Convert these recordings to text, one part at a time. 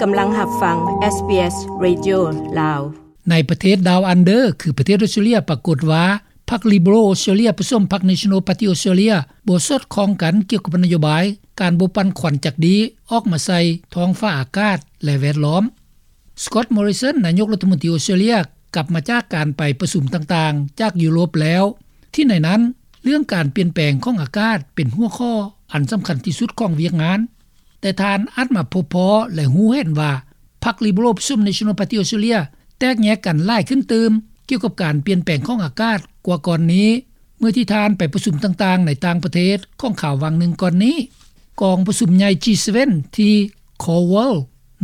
ກຳລັງຮັບຟັງ ເອສບີເອສ ເຣດິໂອ ລາວ. ໃນປະເທດ Down Under ຄືປະເທດອອສເຕຣເລັຽ ປາກົດວ່າ ພັກ Liberal Australia ປະສົມພັກ National Party Australia ບໍ່ສອດຄ່ອງກັນກ່ຽວກັບນະໂຍບາຍ ການບໍ່ປັ່ນຄວັນຈັກດີອອກມາໃສ່ທ້ອງຟ້າອາກາດ ແລະ ແວດລ້ອມ. Scott Morrison ນາຍົກລັດຖະມົນຕີອອສເຕຣເລັຽ ກັບມາຈາກການໄປປະຊຸມຕ່າງໆ ຈາກຢູໂຣບແລ້ວ ທີ່ໃນນັ້ນ ເລື່ອງການປ່ຽນແປງຂອງອາກາດເປັນຫົວຂໍ້ອັນສຳຄັນທີ່ສຸດຂອງວຽກງານ, ແຕ່ທ່ານອາດມາພົບພໍ້ ແລະ ຮູ້ເຫັນວ່າ ພັກ Liberal ປະສົມ National Party Australia ແຕກແຍກກັນຫຼາຍຂຶ້ນຕື່ມ ກ່ຽວກັບການປ່ຽນແປງຂອງອາກາດກວ່າກ່ອນນີ້ ເມື່ອທີ່ທ່ານໄປປະຊຸມຕ່າງໆໃນຕ່າງປະເທດຂອງຄາວຫວ່າງໜຶ່ງກ່ອນນີ້. ກອງປະຊຸມໃຫຍ່ ຈີເຊເວັນ ທີ່ Coral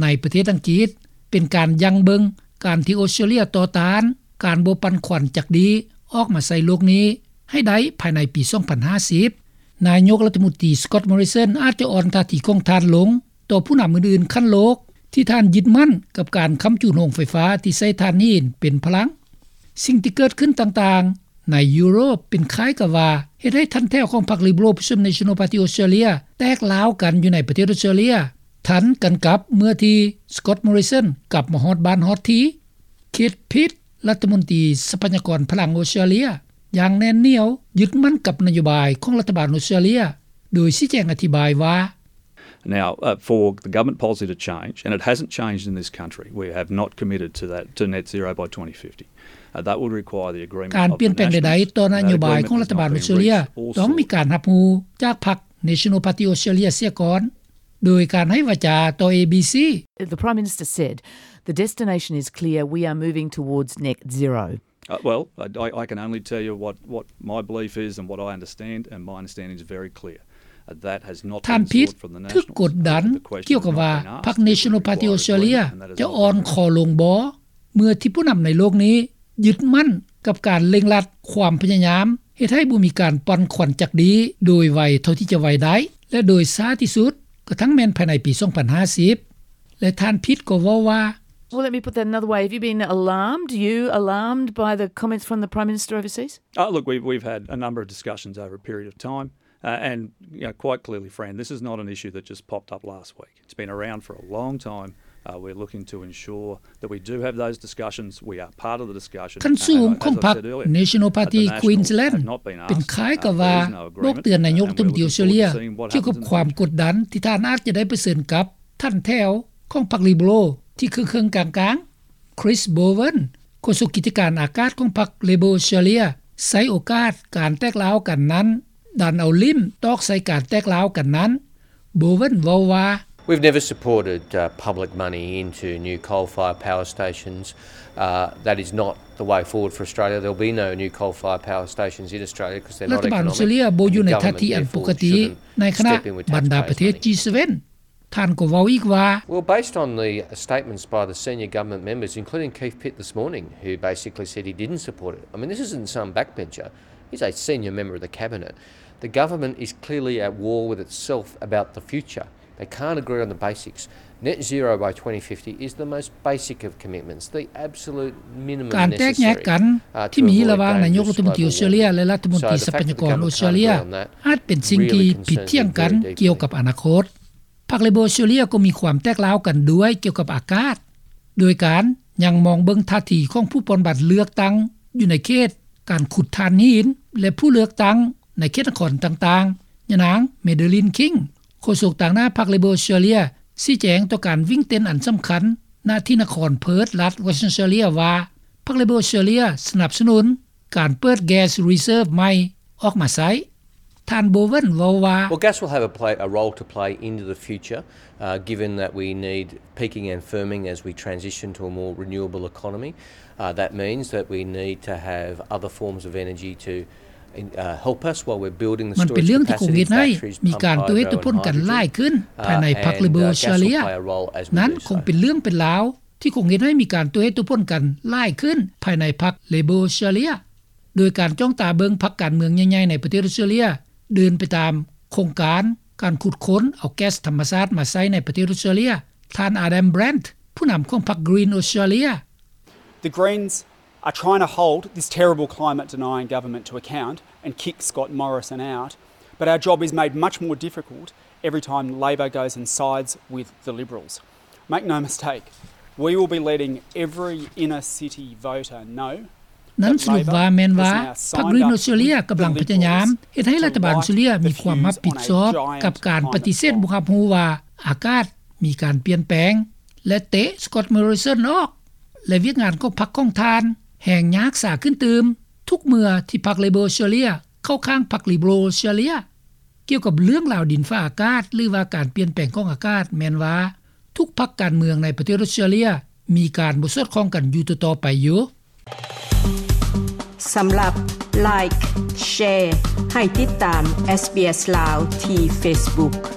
ໃນປະເທດອັງກິດ ເປັນການຢັ້ງເບິ່ງການທີ່ອອສເຕຣເລັຽຕໍ່ຕ້ານການບໍ່ປັ່ນຄວັນຈັກດີອອກມາໃສ່ໂລກນີ້ໃຫ້ໄດ້ພາຍໃນປີສອງພັນຫ້າສິບ. ນາຍົກລັດຖະມົນຕີ Scott Morrison ອາດຈະອ່ອນທ່າທີຂອງທ່ານລົງຕໍ່ຜູ້ນຳອື່ນໆຂັ້ນໂລກ ທີ່ທ່ານຍຶດໝັ້ນກັບການຄ້ຳຈູນໂຮງໄຟຟ້າທີ່ໃຊ້ຖ່ານຫີນເປັນພະລັງ. ສິ່ງທີ່ເກີດຂຶ້ນຕ່າງໆໃນຢູໂຣບເປັນຄ້າຍກັບວ່າເຮັດໃຫ້ຖັນແຖວຂອງພັກ Liberal ປະສົມ National Party Australia ແຕກລ້າວກັນຢູ່ໃນປະເທດອອສເຕຣເລັຽ ທັນກັນກັບເມື່ອທີ່ Scott Morrison ກັບມາຮອດບ້ານຮອດທີ່. Keith Pitt ລັດຖະມົນຕີຊັບພະຍາກອນພະລັງອອສເຕຣເລັຽ ຢ່າງແໜ້ນໜຽວຍຶດໝັ້ນກັບນະໂຍບາຍຂອງລັດຖະບານອອສເຕຣເລັຽ ໂດຍຊີ້ແຈງອະທິບາຍວ່າ Now, uh, for the government policy to change, and it hasn't changed in this country, we have not committed to that, to net zero by twenty fifty. Uh, that would require the agreement of the Nationals. ການປ່ຽນແປງໃດໆຕໍ່ນະໂຍບາຍຂອງລັດຖະບານອອສເຕຣເລັຽ ຕ້ອງມີການຮັບຮູ້ຈາກພັກ National Party Australia ເສຍກ່ອນ ໂດຍການໃຫ້ວາຈາຕໍ່ ເອບີຊີ. The Prime Minister said, "The destination is clear, we are moving towards net zero." Uh, well, I, I, I can only tell you what, what my belief is and what I understand, and my understanding is very clear. Uh, that has not been sought from the Nationals. ທ່ານ Pitt ຖືກກົດດັນກ່ຽວກັບວ່າພັກ National Party Australia ຈະອ່ອນຄໍລົງບໍ່ ເມື່ອທີ່ຜູ້ນຳໃນໂລກນີ້ຍຶດໝັ້ນກັບການເລັ່ງລັດຄວາມພະຍາຍາມເຮັດໃຫ້ບໍ່ມີການປັ່ນຄວັນຈັກດີໂດຍໄວເທົ່າທີ່ຈະໄວໄດ້ ແລະ ໂດຍຊ້າທີ່ສຸດກະທັ່ງແມ່ນພາຍໃນປີສອງພັນຫ້າສິບ. ແລະ ທ່ານ Pitt ກໍເວົ້າວ່າ Well, let me put that another way. Have you been alarmed? You alarmed by the comments from the Prime Minister overseas? Uh, look, we've, we've had a number of discussions over a period of time. Uh, and, you know, quite clearly, Fran, this is not an issue that just popped up last week. It's been around for a long time. Uh, we're looking to ensure that we do have those discussions. We are part of the discussion. ຂັ້ນສູງຂອງພັກ National Party Queensland ເປັນຄ້າຍກັບວ່າບອກເຕືອນນາຍົກລັດຖະມົນຕີອອສເຕຣເລັຽ ກ່ຽວກັບຄວາມກົດດັນທີ່ທ່ານອາດຈະໄດ້ປະເຊີນກັບຖັນແຖວຂອງພັກ Liberal ທີ່ເຄິ່ງໆກາງໆ. Chris Bowen ໂຄສົກກິດຈະການອາກາດຂອງພັກ Labor Australia ໃຊ້ໂອກາດການແຕກລ້າວກັນນັ້ນ ດັນເອົາຫຼິ້ມຕອກໃສ່ການແຕກລ້າວກັນນັ້ນ. Bowen ເວົ້າວ່າ We've never supported, uh, public money into new coal-fired power stations. Uh, that is not the way forward for Australia. There'll be no new coal-fired power stations in Australia 'cause they're not economic. ລັດຖະບານອອສເຕຣເລັຽບໍ່ຢູ່ໃນທ່າທີອັນປົກກະຕິ ໃນຂະນະບັນດາປະເທດ ຈີເຊເວັນ ທ່ານກໍເວົ້າອີກວ່າ Well, based on the statements by the senior government members, including Keith Pitt this morning, who basically said he didn't support it. I mean, this isn't some backbencher. He's a senior member of the cabinet. The government is clearly at war with itself about the future. They can't agree on the basics. Net zero by twenty fifty is the most basic of commitments, the absolute minimum necessary. ການແຕກແຍກກັນທີ່ມີລະຫວ່າງນາຍົກລັດຖະມົນຕີອອສເຕຣເລັຽ ແລະ ລັດຖະມົນຕີຊັບພະຍາກອນອອສເຕຣເລັຽ ອາດເປັນສິ່ງທີ່ຜິດຖຽງກັນກ່ຽວກັບອະນາຄົດ. ພັກ Labor Australia ກໍມີຄວາມແຕກລ້າວກັນດ້ວຍກ່ຽວກັບອາກາດ ໂດຍການຍັງມອງເບິ່ງທ່າທີຂອງຜູ້ປ່ອນບັດເລືອກຕັ້ງຢູ່ໃນເຂດການຂຸດຖ່ານຫີນ ແລະ ຜູ້ເລືອກຕັ້ງໃນເຂດນະຄອນຕ່າງໆ. ຍານາງ Madeleine King ໂຄສົກຕາງໜ້າພັກ Labor Australia ຊີ້ແຈງຕໍ່ການວິ່ງເຕັ້ນອັນສຳຄັນ ນະທີ່ນະຄອນເພີດ ລັດ Western Australia ວ່າ ພັກ Labor Australia ສະໜັບສະໜູນ ການເປີດ gas reserve ໃໝ່ອອກມາໃຊ້. ທ່ານ Bowen ເວົ້າວ່າ Well, gas will have a play, a role to play into the future, uh, given that we need peaking and firming as we transition to a more renewable economy. Uh, that means that we need to have other forms of energy to, uh, help us while we're building the storage capacity, batteries, pump hydro and hydrogen. ມັນເປັນເລື່ອງທີ່ຄົງເຮັດໃຫ້ມີການຕົວເຮັດຕົວພົນກັນຫຼາຍຂຶ້ນພາຍໃນພັກ Labor Australia. ນັ້ນຄົງເປັນເລື່ອງເປັນລາວ ທີ່ຄົງເຮັດໃຫ້ມີການຕົວເຮັດຕົວຜົນກັນຫຼາຍຂຶ້ນພາຍໃນພັກ Labor Australia ໂດຍການຈ້ອງຕາເບິ່ງພັກການເມືອງໃຫຍ່ໆໃນປະເທດອອສເຕຣເລັຽ ເດີນໄປຕາມໂຄງການການຂຸດຄົ້ນເອົາແກັສທຳມະຊາດມາໃຊ້ໃນປະເທດອອສເຕຣເລັຽ. ທ່ານ Adam Bandt ຜູ້ນຳຂອງພັກ Green Australia. The Greens are trying to hold this terrible climate denying government to account and kick Scott Morrison out, but our job is made much more difficult every time Labor goes and sides with the Liberals. Make no mistake, we will be letting every inner city voter know ນັ້ນສະຫຼຸບວ່າແມ່ນວ່າ ພັກ Green Australia ກຳລັງພະຍາຍາມເຮັດໃຫ້ລັດຖະບານອົດສະເຕຣເລັຽມີຄວາມຮັບຜິດຊອບກັບການປະຕິເສດບໍ່ຮັບຮູ້ວ່າອາກາດມີການປ່ຽນແປງ ແລະ ເຕະ Scott Morrison ອອກ ແລະ ວຽກງານຂອງພັກຂອງທ່ານແຮ່ງຍາກສາຂຶ້ນຕື່ມ ທຸກເມື່ອທີ່ພັກ Labor ເຊຣເລຍເຂົ້າຂ້າງພັກ Liberal ເຊຣເລຍ. ກ່ຽວກັບເລື່ອງລາວດິນຟ້າອາກາດ ຫຼືວ່າການປ່ຽນແປງຂອງອາກາດ ແມ່ນວ່າທຸກພັກການເມືອງໃນປະເທດອົດສະເຕຣເລັຽມີການບໍ່ສອດຄ່ອງກັນຢູ່ຕໍ່ໆໄປຢູ່. ສຳລັບ Like Share ໃຫ້ຕິດຕາມ SBS ລາວ ທີ່ Facebook.